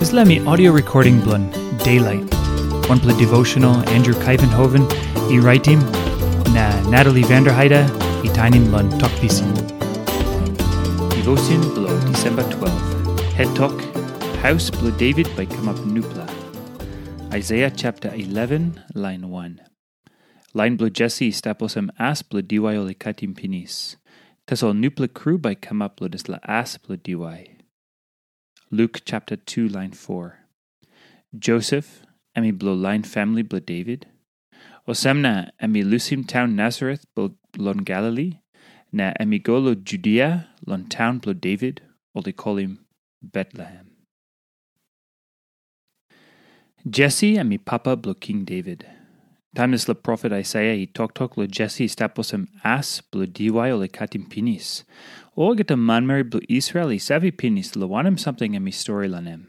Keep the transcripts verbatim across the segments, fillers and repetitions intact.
Dispela mi audio recording bilong Daylight, wanpela devotional Andrew Kaivenhoven i raitim, na Natalie Vanderheide i tainim long Tok Pisin. Devotion bilong Disemba twelve. Het tok, Haus bilong David bai kamap nupela. Aisaia chapter eleven, line one. Lain bilong Jesi i stap olsem as bilong diwai ol i katim pinis. Tasol nupela kru bai i kamap long dispela as bilong diwai. Luk chapter two, line four. Josep, em i bilong lain famili bilong Devit. Olsem na em i lusim taun Nasaret bilong Galili, na em i go long Judia, long taun bilong Devit, ol i kolim Betlehem. Jesi em i papa bilong King Devit. Taim dispela profet Aisaia i toktok long Jesi i stap olsem as bilong diwai ol i katim pinis, olgeta manmeri bilong Israel i save pinis long wanem samting em i stori long em.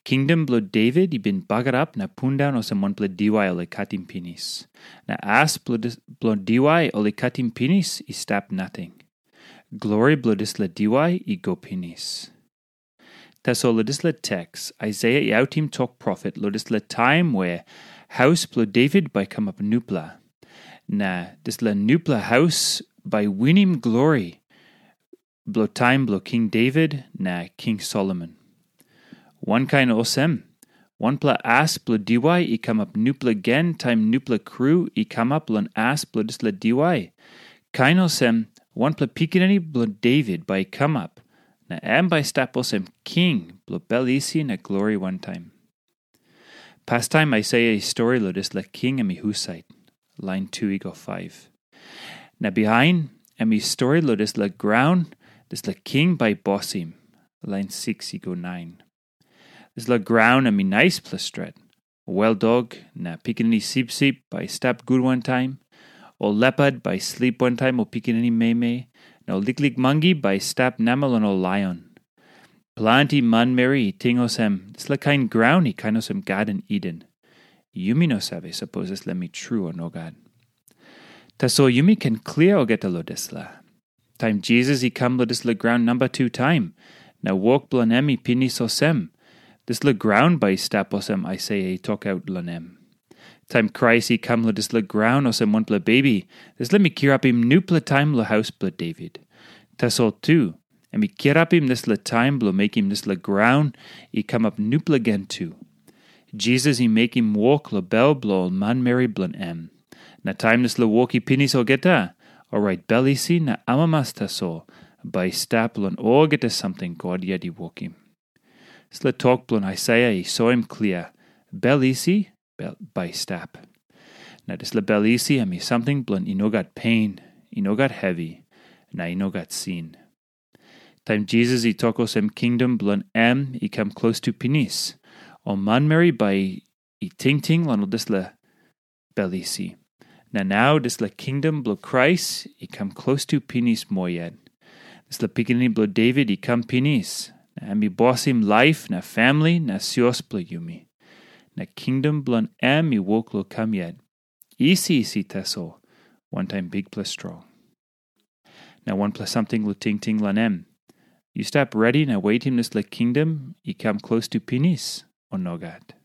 Kingdom bilong Devit i bin bagarap na pundaun olsem wanpela diwai ol i katim pinis. Na as bilong diwai ol i katim pinis i stap nating. Glori bilong dispela diwai i go pinis. Tasol long dispela teks, Aisaia i autim tok profet long dispela taim we haus bilong Devit bai kamap nupela. Na dispela nupela haus bai winim glori bilong taim bilong King Devit na King Solomon. Wankain olsem, wanpela as bilong diwai i kamap nupela gen taim nupela kru i kamap long as bilong dispela diwai. Kain olsem, wanpela pikinini bilong Devit bai i kamap, na em bai i stap olsem king bilong bel isi na glori wantaim. Pastaim Aisaia i stori long dispela king em i husat, lain tu i go faiv. Na bihain em i stori long dispela graun dispela king bai i bosim, lain siks i go nain. Dispela graun em i naispela stret. Weldok na pikinini sipsip bai i stap gut wantaim. Ol lepat bai i slip wantaim ol pikinini meimei, na ol liklik mangi bai i stap namel long ol laion. Planti manmeri i ting olsem, dispela kain graun i kain olsem Garden Eden. Yumi no save sapos dispela mi tru o nogat. Tasol yumi ken klia olgeta long dispela. Taim Jisas i kam long dispela graun namba tu taim, na wok bilong em i pinis olsem, dispela graun bai i stap olsem Aisaia i tokaut long em. Taim Krais i kam long dispela graun olsem wanpela bebi, dispela mi kirapim nupela taim long haus bilong Devit. Tasol tu, em i kirapim dispela taim bilong mekim dispela graun i kamap nupela gen tu. Jisas i mekim wok long bel bilong ol manmeri bilong em. Na taim dispela wok i pinis olgeta, orait bel isi na amamas tasol bai i stap long olgeta samting God yet i wokim. Dispela tok bilong Aisaia i soim klia, bel isi bai i stap. Na dispela bel isi em i samting bilong i no gat pen, i no gat hevi, na i no gat sin. Taim Jisas i tok olsem kingdom bilong em i kam klostu pinis, ol manmeri bai i tingting long dispela bel isi. Na nau dispela kingdom bilong Krais i kam klostu pinis moa yet. Dispela pikinini bilong Devit i kam pinis, na em i bosim laip na famili na sios bilong yumi. Na kingdom bilong em i wok long kam yet, isi isi tasol, wantaim bikpela strong. Na wanpela samting long tingting long em. Yu stap redi na wetim dispela kingdom i kam klostu pinis, o nogat?